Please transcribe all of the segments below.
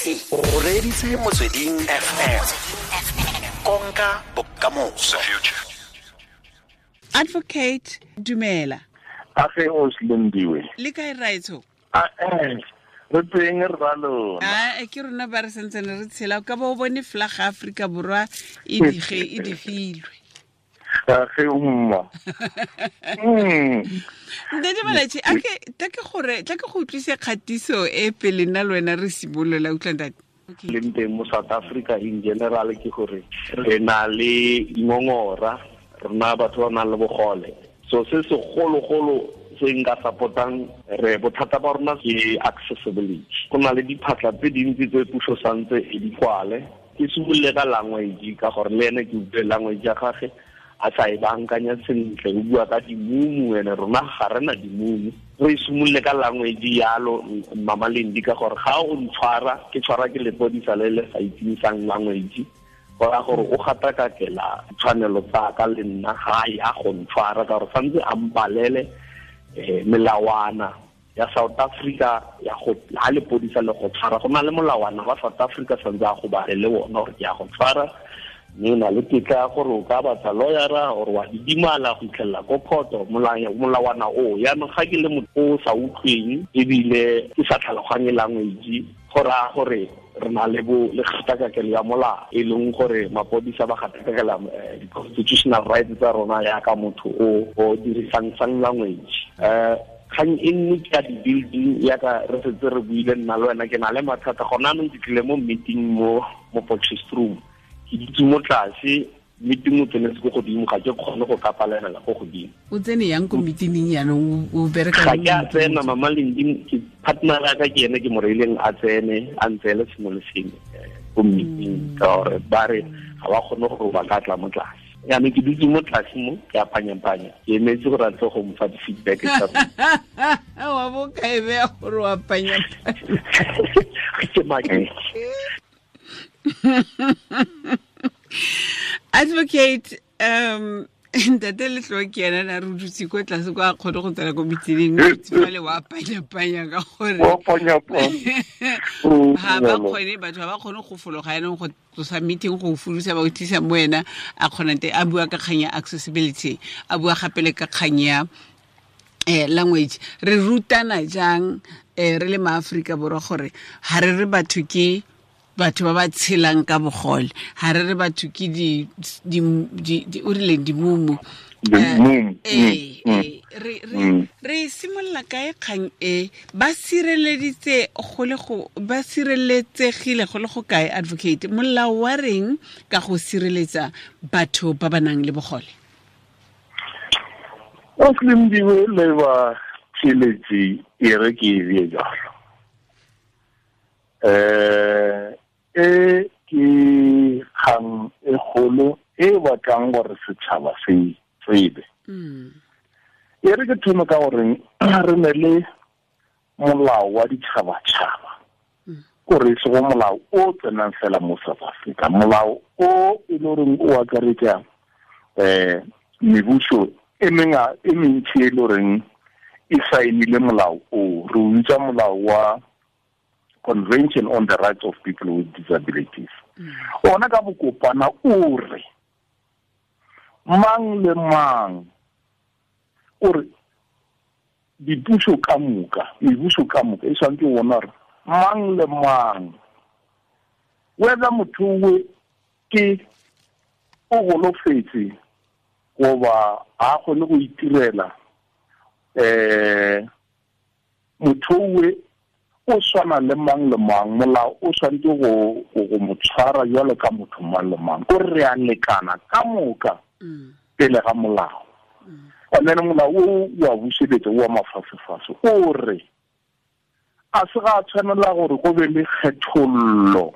O reditse Motsweding FM. Konka bokamoso. Advocate, dumela. Age o Slindiwe. Le kae raetsho? A re teng re ba lona. A ke rona ba re santsane re tshela ka bo bone flag Afrika Borwa e dige e digilwe. Age mma. Ntate Malatji, a ke tla ke gore tla ke go utlwise kgatiso e pele nna le wena re simolola, utlwa ntate. Leng teng mo South Africa in general ke gore re na le ngongora, rena batho ba nang le bogole. So se segologolo se nka supportang re bothata ba rona ke accessibility. Go na le diphatlha tse dintsi tse puso santse e di kwale. Ke simolole ka language ka gore le ene ke utlwe language ya gagwe a sa e bankanya sentle, o bua ka dimumu, ene rona ga re na dimumu. Re simolole ka language yalo Mama Lendi ka gore ga o ntshwara ke tshwara ke lepodisa le le sa itseng language, go ra gore o gatakakela tshwanelo tsa ka le nna ga ya go ntshwara ka gore santse a mpalele melawana ya South Africa ya go ha lepodisa le go tshwara. Go na le molawana wa South Africa santse a go balele ona gore ke ya go tshwara, mme na le tetla ya gore o ka batla lawyera or wa didimala go itlhelela ko court, molawana o. Yaanong ga ke le motho o sa utlweng ebile ke sa tlhaloganye language, go raya gore re na le bo le kgatakakelo ya molao, e leng gore mapodisa ba gatakakela di-constitutional rights tsa rona yaka motho o dirisang sign language. Kgang e nngwe ke ya di-building, yaka re setse re buile nna le wena, ke na le mathata gona anong. Ke tlile mo meeting mo Potchefstroom, ke dutse mo tlase, meeting o tsenetse ko godimo, ga ke kgone go ka palamela ko godimo. O tsene yang ko meeting yanong, o bereka Ga ke a tsena Mama Lendi, ke partner ya ka ke ene ke mo reileng a tsene, a ntseele sengwe le sengwe ko meeting, ka gore ba re ga ba kgone gore ba ka tla mo tlase. Yaanong ke dutse mo tlase mo, ke a panya-panya, ke emetse gore a tle go mfa di-feedback tsa rona. Wa bo ka e beya gore wa panya-panya. Ke maketse. Advocate, ntate Letloa ke ena na re dutse ko tlase kwa a kgone go tsena ko meeting, mme dutse fale wa panya-panya ka gore Wa panya-panya. Ga ba kgone, batho ga ba kgone go fologa yanong go tlosa meeting go folosa ba o tlisa mo wena, a kgona te a bua ka kgang ya accessibility, a bua gape le ka kgang ya language. Re rutana jang re le maAforika Borwa gore ga re re batho ke batho ba ba tshelang ka bogole, ga re re batho ke o rileng dimumu. Dimumu. Re simolola kae kgang e? Ba sireleditse go le go, ba sireletsegile go le go kae, advocate? Molao wa reng ka go sireletsa batho ba ba nang le bogole? O Slindiwe le ba tshireletsi e re ke e bue jalo. E ke kgang e kgolo e batlang gore setšhaba se tsebe. E re ke thome ka gore re ne le molao wa ditšhabatšhaba, kore e sego molao o tsenang fela mo South Africa, molao o e le goreng o akaretsa mebuso e menga e mentsi e le goreng e saenile molao o. Re o bitsa molao wa Convention on the Rights of People with Disabilities. Ona ka bokopana o re mang le mang, o re dipuso ka moka, mebuso ka moka e tshwanetse go bona gore mang le mang, whether motho o ke o golofetse goba ga a kgone go itirela, motho o o tshwana le mang le mang, molao o tshwanetse go mo tshwara jwalo ka motho mang le mang, ko re a lekana ka moka pele ga molao. And then molao o wa buseletsa wa mafasefase o re a se ga tshwanela gore go be le kgethollo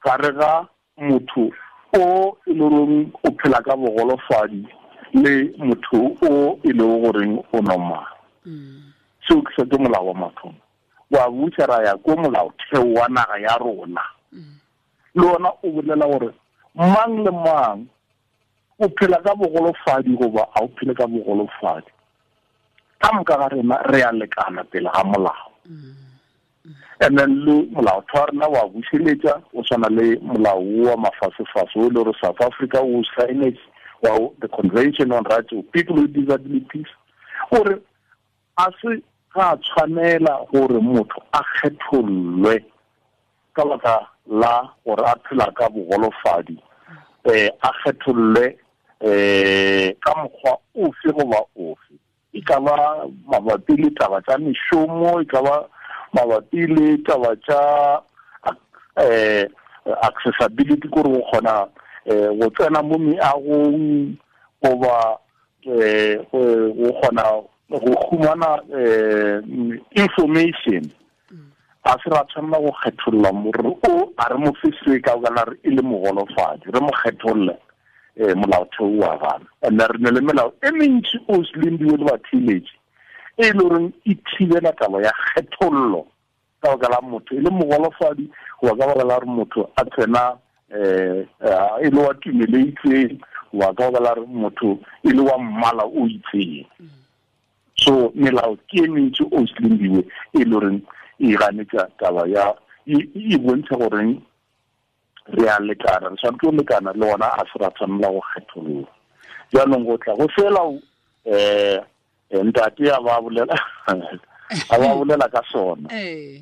gare ga motho o e le goreng o phela ka bogolofadi le motho o e leng goreng o normal. Seo ke se ke molao wa mathomo. Wa busa ra ya ko molaotheo wa naga ya rona. Le ona o bolela gore mang le mang o phela ka bogolofadi goba a o phele ka bogolofadi, ka moka ga rena re a lekana pele ga molao. And then le molaotheo wa rena wa bušeletša o swana le molao wa mafasefase o e le gore South Africa o saenetse wa the Convention on Rights of People with Disabilities, gore a se ga tshwanela gore motho a kgethollwe ka baka la gore a phela ka bogolofadi, a kgethollwe ka mokgwa ofe goba ofe, e ka ba mabapi le taba tša mešomo, e ka ba mabapi le taba tša accessibility, kore go kgona go tsena mo meagong goba go kgona go humana information. A se ra tshwanela go kgetholla more o a re mo fe se ka baka re e le mogolofadi, re mo kgetholle molaotheo wa gana. And re ne le melao e mentši o selendiwe le batheeletši e le goreng e thibela taba ya kgethollo ka baka la motho e le mogolofadi goba ka baka la gore motho a tsena e le wa tumelo e itseng goba ka baka la gore motho e le wa mmala o itseng. So melao ke e mentši o selendiwe e le goreng e ganetša taba ya e bontsha goreng re a lekana, re tshwanetse go lekana le gona a se ra tshwanela go kgetholla. Jaanong go tla go fela ntate a ba bolela a ba bolela ka sona. Ee,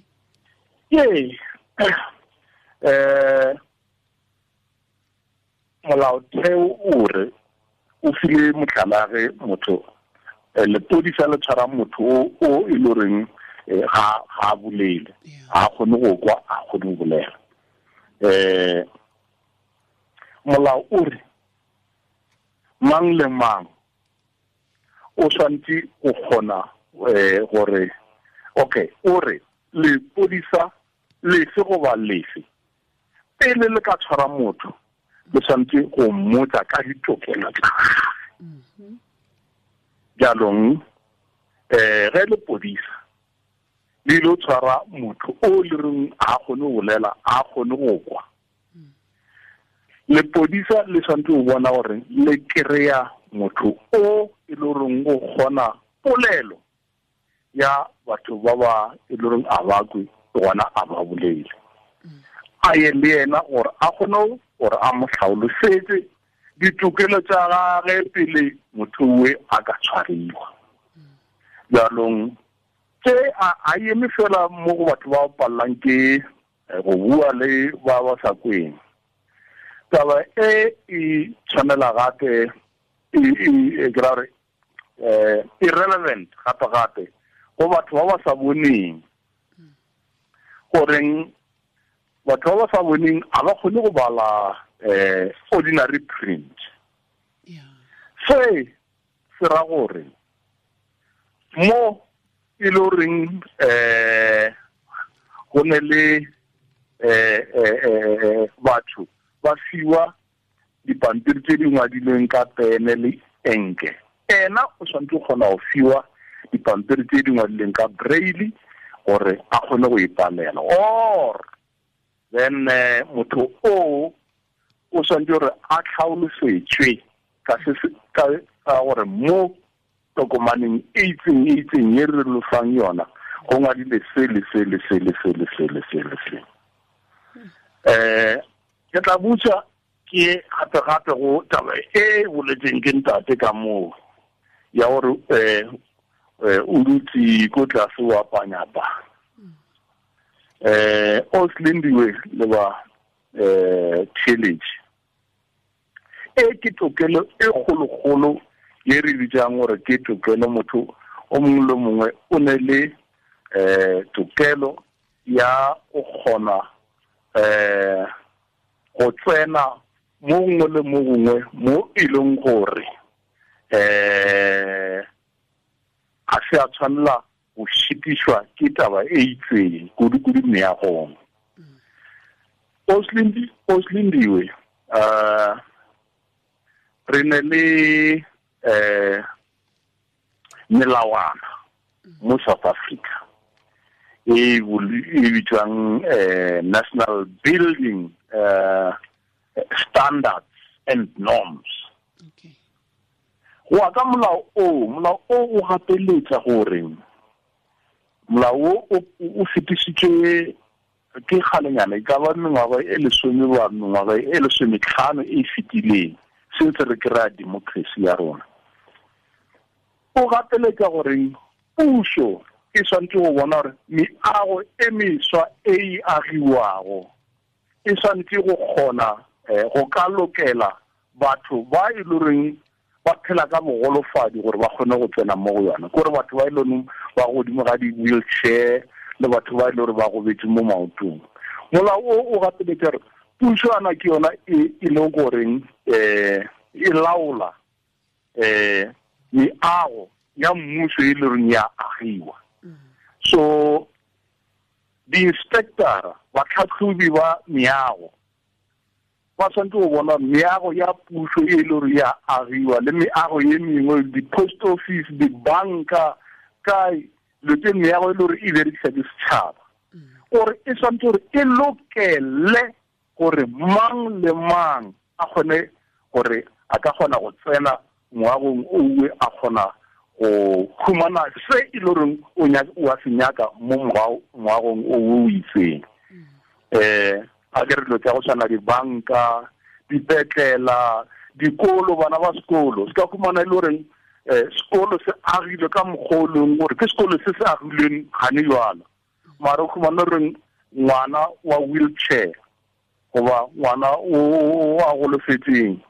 molaotheo o re o file mohlala ge motho lepodisa le tshwara motho o e le goreng ga a bolele, ga a kgone go kwa, a kgone go bolela. Molao o re mang le mang o tshwanetse go kgona gore okay, o re lepodisa lefe goba lefe pele le ka tshwara motho le tshwanetse go mmotsa ka ditokelo tsa gagwe. Jaanong ge lepodisa le ile tshwara motho o le reng a kgone go bolela, a kgone go kwa, lepodisa le tshwanetse go bona gore le kry-a motho o e le goreng o kgona polelo ya batho ba ba e le goreng a ba kwe gona a ba bolele, a ye le yena gore a kgone gore a mo hlaolosetse ditokelo tša gage pele motho owe a ka tshwariwa. Jaanong tse a eme fela mo go batho ba pallang ke go bua le ba ba sa kweng. Taba e e tshwanela gape e ke ra gore irrelevant gape gape go batho ba ba sa boneng, goreng batho ba ba sa boneng a ba kgone go bala ordinary print. Se se ra gore mo e le goreng go ne le batho ba fiwa dipampiri tse di ngwadilweng ka pene le enke, ena o tshwanetse go kgona go fiwa dipampiri tse di ngwadilweng ka braille gore a kgone go ipalela. Or then motho o tshwanetse gore a tlhaolosetswe ka se ka gore mo tokomaneng e itseng e itseng e re lofang yona go ngwadile se le se le se le se le se le se le se. Ke tla botsa ke gape gape go taba e boletseng ke ntate ka moo ya gore o dutse ko tlase wa panyapa. O Slindiwe le ba challenge e ke tokelo e kgolokgolo ye re bitsang gore ke tokelo motho o mongwe le mongwe o ne le tokelo ya go kgona go tsena mo gongwe le mo gongwe mo e leng gore a se a tshwanela go šitišwa ke taba e itseng kudu-kudu meagong. O Slindiwe re ne le melawana mo South Africa e bitswang National Building Standards and Norms. Go ya ka molao o gapeletsa gore Molao o fetisitswe ke kgalenyana, e ka ba mengwaga e 10 ba mengwaga e 15 e fetileng since re kry-a democracy ya rona. O gateletsa gore puso e tshwanetse go bona gore meago e meswa e e agiwago e tshwanetse go kgona go ka lokela batho ba e loreng ba phela ka bogolofadi gore ba kgone go tsena mo go yona, kore batho ba e leng ba godimo ga di-wheelchair le batho ba e leng gore ba gobetse mo maotong. Molao o gateletsa gore puso ana ke yona e leng goreng e laola meago ya mmuso e leng ya agiwa. So di-inspector, batlhatlhobi ba meago ba tshwanetse go bona meago ya puso e le gore ya agiwa le meago e mengwe, di-post office, dibanka, kae dilo tse meago e le gore e berekisa ke setšhaba, gore e tshwanetse gore e lokele gore mang le mang a kgone gore a ka kgona go tsena moagong owe, a kgona go khumana se e le goreng o a se nyaka mo moagong o o itseng. A ke re dilo tsa go tshwana dibanka, dipetlela, dikolo, bana ba sekolo se ka khumana e le goreng sekolo se agilwe ka mokgwa o leng gore ke sekolo se se agilweng gane jwalo, mara o khumana goreng ngwana wa wheelchair goba ngwana o a golofetseng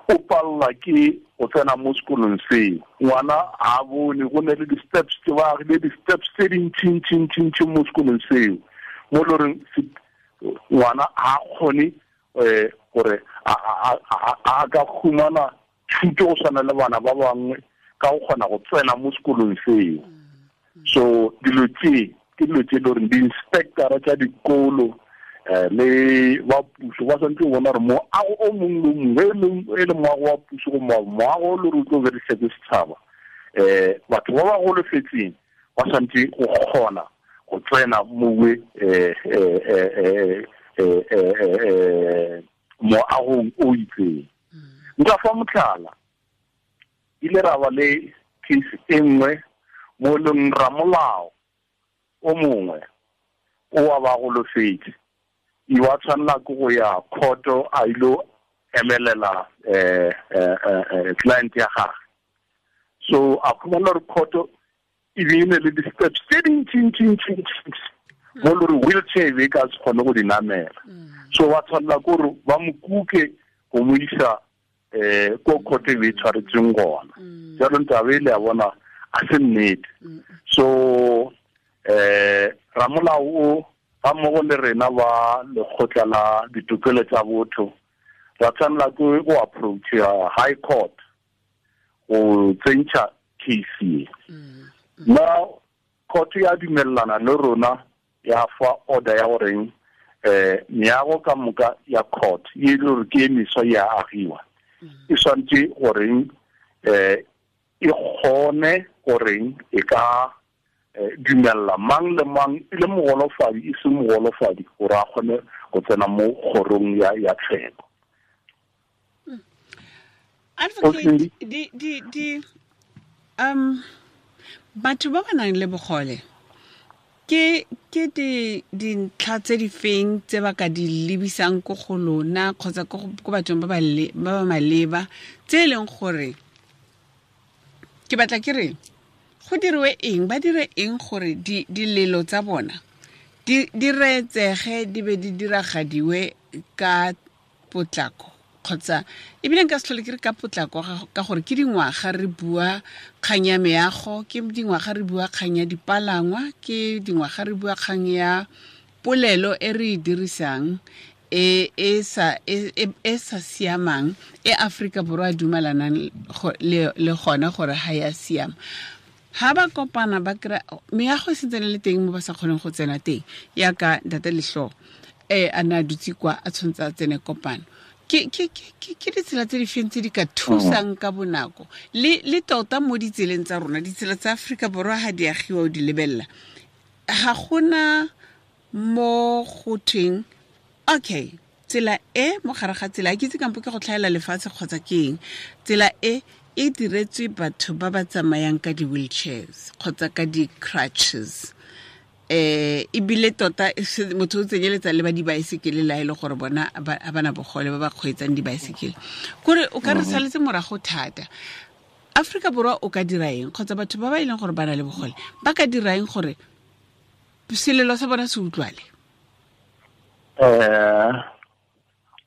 o palelwa ke go tsena mo sekolong seo. Ngwana a bone go ne le di-steps tse ba agile di-steps tse dintšintšintšintši mo sekolong seo, mo e le goreng ngwana a kgone gore a ka khumana thuto go tshwana le bana ba bangwe ka go kgona go tsena mo sekolong seo. So dilo tse ke dilo tse e le goreng di-inspectora tsa dikolo le ba puso ba tshwanetse go bona gore moago o mongwe le mongwe e le moago wa puso go moago o le gore o tlo berekisa ke setšhaba, batho ba ba golofetseng ba tshwanetse go kgona go tsena mowe moagong o itseng. Nka fa motlhala, ile ra ba le case e nngwe mo leng ramolao o mongwe o wa ba golofetse, e wa tshwanela ke go ya court a ilo emelela client ya gagwe. So a khumana gore court e be e ne le di-steps tse dintšintšintšintši mo le gore wheelchair e ka se kgone go di namela. So ba tshwanela ke gore ba mo kuke go mo isa ko court e be e tshwaretseng gona. Jaanong taba e le ya bona a se nnete. So ramolao o ga mmogo le rena ba lekgotla la ditokelo tsa botho ra tshwanela ke go approach high court go tsentšha case e. Na court ya dumellana le rona ya fa order ya goreng meago ka moka ya court e le gore ke e meswa ya agiwa, e tshwanetse goreng e kgone goreng e ka dumella mang le mang e le mogolofadi e se mogolofadi gore a kgone go tsena mo kgorong ya tsheko. Advocate, di batho ba ba nang le bogole ke ke dintlha tse di feng tse ba ka di lebisang ko go lona kgotsa ko bathong ba ba maleba tse e leng gore ke batla ke re go diriwe eng, ba dire eng gore dilelo tsa bona di reetsege di be di diragadiwe ka potlako, kgotsa ebile nka se tlhole ke re ka potlako ka gore ke dingwaga re bua kgang ya meago, ke dingwaga re bua kgang ya dipalangwa, ke dingwaga re bua kgang ya polelo e re e dirisang e e sa siamang e Afrika Borwa a dumelanang le gona gore ga ya siama. Ha ba kopana ba kry meago e sentse le teng mo ba sa kgoneng go tsena teng, yaka ntate Letlho a ne a dutse kwa a tshwanetse a tsene kopano. Ke ditsela tse di feng tse di ka thusang ka bonako le tota mo ditseleng tsa rona, ditsela tsa Afrika Borwa ha di agiwa o di lebelela, ga gona mo go thweng okay tsela e mo gare ga tsela, ke itse kampo ke go tlhaela lefatshe kgotsa ke eng, tsela e e diretswe batho ba ba tsamayang ka di-wheelchairs kgotsa ka di-crutches. Ebile tota motho o tsenyeletsa le ba dibaesekele la e le gore bona ba bana bogole ba ba kgweetsang dibaesekele. Kore o ka re saletse morago thata. Afrika Borwa o ka dira eng kgotsa batho ba ba e leng gore ba na le bogole ba ka dira eng gore selelo sa bona se utlwale?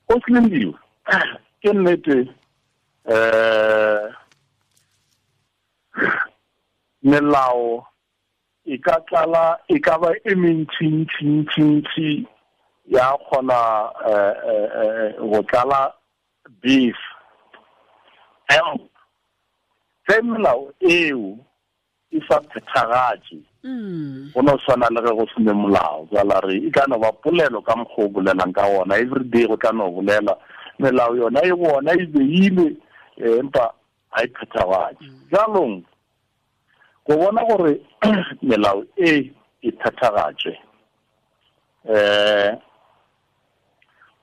O Slindiwe, ke nnete melao e ka tlala e ka ba e mentsi ya kgona go tlala beef. Ge melao eo e sa phethagatše, go no swana le ge go sene molao. Jala re e ka no ba polelo ka mokgwa o bolelang ka ona everyday, go tla no bolela melao yona e bona e beile, empa ga e phethagatše. Jalong go bona gore melao e e phethagatšwe,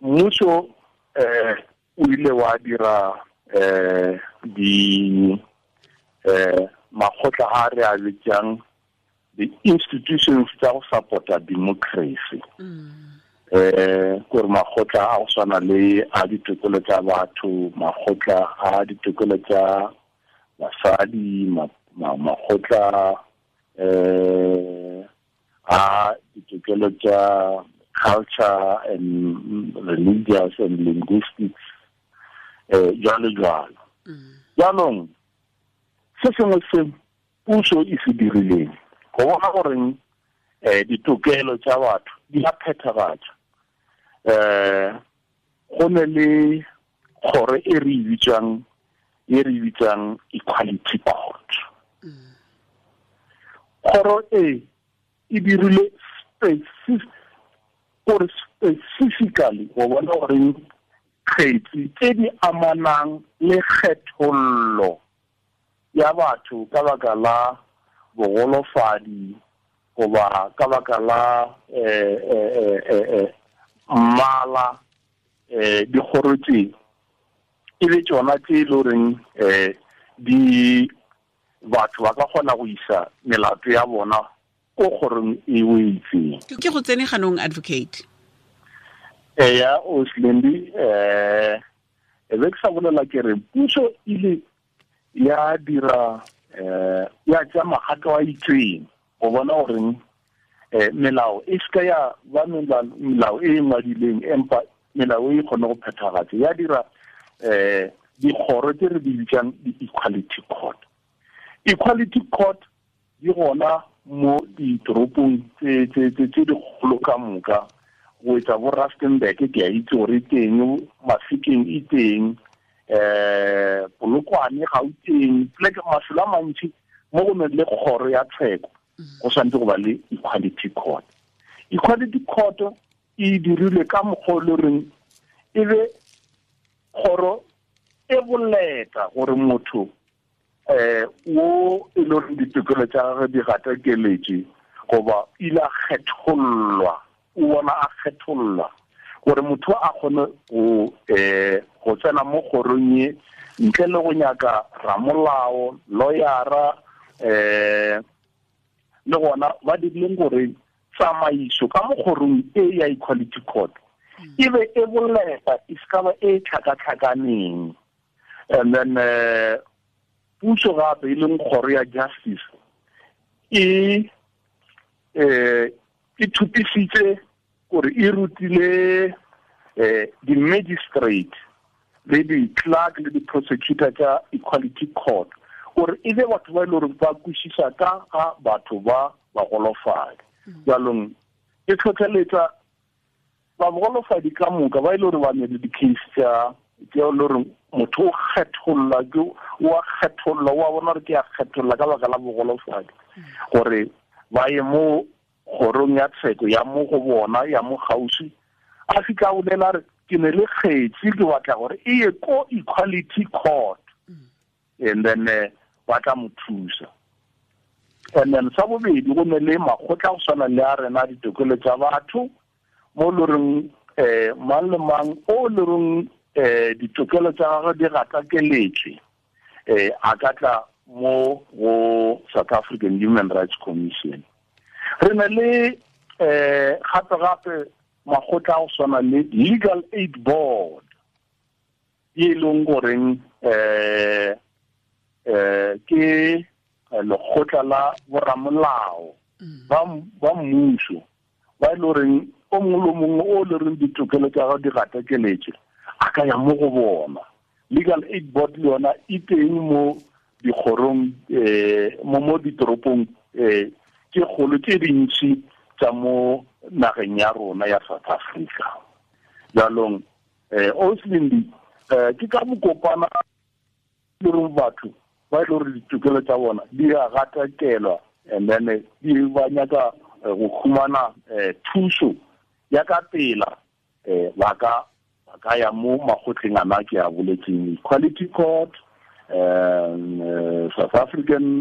mmušo o ile wa dira di makgotla a re a bitsang the institutions tsa go support-a democracy. Gore makgotla a go swana le a ditokelo tsa batho, makgotla a ditokelo tsa basadi, makgotla a ditokelo tsa culture and religious and linguistics, jalo jalo. Jaanong se sengwe se puso e se dirileng go bona goreng ditokelo tsa batho di a phethagatša, go ne le kgoro e re bitsang Equality Court. Kgoro e e dirile specifically go bona goreng kgetsi tse di amanang le kgethollo ya batho ka baka la bogolofadi goba ka baka la mmala, dikgoro tse e be tsona tse e le goreng di batho ba ka kgona go isa melato ya bona ko kgorong e o itseng. Ke go tsene ganong, advocate. Eya, o Slendi, e be ke sa bolela ke re puso ile ya dira ya tsa magato a itseng go bona goreng melao e seka ya ba melao e ngwadileng, empa melao e kgone go phethagatša. Ya dira dikgoro tse re di bitsang di-equality court. Equality court di gona mo ditoropong tse dikgolo ka moka, go etsa bo Rustenburg ke a itse gore e teng, Mafikeng e teng, Polokwane, Gauteng, pleke mafelo a mantši mo go neng le kgoro ya tsheko go tshwanetse go ba le equality court. Equality court e dirilwe ka mokgwa o le goreng e be kgoro e boleta gore motho wo e le goreng ditokelo tsa gagwe di gatakeletše goba ile a kgethollwa, o bona a kgethollwa, gore motho a kgone go tsena mo kgorong ye ntle le go nyaka ramolao, lawyera, le gona ba dirileng gore tsamaiso ka mo kgorong e ya equality court e be e boleta, e se ka ba e tlhakatlhakaneng. And then puso gape e leng kgoro ya justice e thupisitse gore e rutile di-magistrate le di-clerk le di-prosecutor tsa equality court gore e be batho ba e le gore ba kwešiša ka ga batho ba bagolofadi. Jalong e tlhotlheletsa bagolofadi ka moka ba e le gore ba ne le di-case tsa e le gore motho o kgetholla, o a kgetholla, o a bona gore ke a kgetholla ka baka la bogolofadi, gore ba ye mo kgorong ya tsheko ya mo go bona ya mo kgauswi, a fitlha a bolela re ke ne le kgetsi ke batla gore e ye ko equality court, and then ba tla mo thusa. And then sa bobedi go ne le makgotla go swana le a rena ditokelo tsa batho mo le goreng mang le mang o le goreng ditokelo tsa gagwe di gatakeletswe, a ka tla mo go South African Human Rights Commission. Re na le gape gape makgotla a go swana le Legal Aid Board, e leng goreng ke lekgotla la boramolao ba mmuso, ba e le goreng o mongwe le mongwe o le reng ditokelo tsa gagwe di gatakeletse a ka ya mo go bona. Legal Aid Board le yona e teng mo dikgorong, mo ditoropong tse kgolo tse dintsi tsa mo nageng ya rona ya South Africa. Jalong Oslindi, ke ka mokopana le reng batho ba e le gore ditokelo tsa bona di a gatakelwa, and then di ba nyaka go khumana thuso ya ka pela, ba ka ya mo makgotleng ana ke a boletseng, Equality Court, South African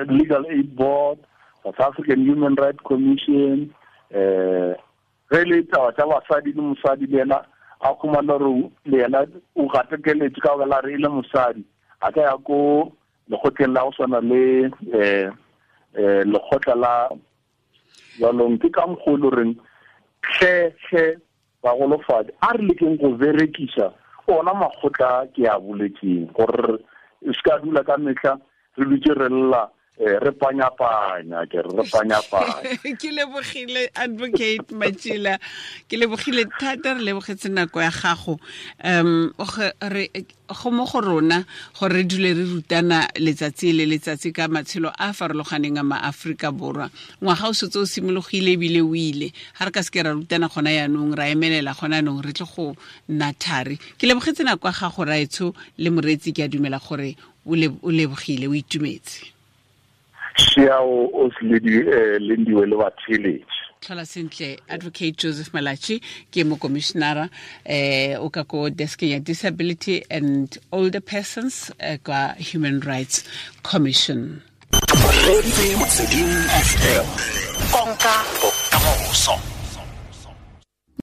Legal Aid Board, South African Human Rights Commission, ge le taba tsa basadi le mosadi le yena a khumana gore le yena o gatakeletse ka baka la re e le mosadi, a ka ya ko lekgotleng la go swana le lekgotla la jalong. Ke ka mokgwa o le goreng tlhe bagolofadi a re lekeng go berekisa ona makgotla ke a boletseng, gore se ka dula ka metlha re dutse re lla, re panyapanya, ke re panyapanya. Ke lebogile Advocate Matjila, ke lebogile thata, re lebogetse nako ya gago. Go mo go rona gore re dule re rutana letsatsi le letsatsi ka matshelo a farologaneng a maAforika Borwa. Ngwaga o setse o simologile ebile o ile, ga re ka seke ra rutana gona yaanong, ra emelela gona yaanong, re tle go nna thari. Ke lebogetse nako ya gago raetsho le moreetsi, ke a dumela gore o lebogile, o itumetse. Siao o Lindiwe le batheletši. Tlhola sentle Advocate Joseph Malatji, ke mokomishinara o ka ko deskeng ya Disability and Older Persons kwa Human Rights Commission. Konka bokamoso.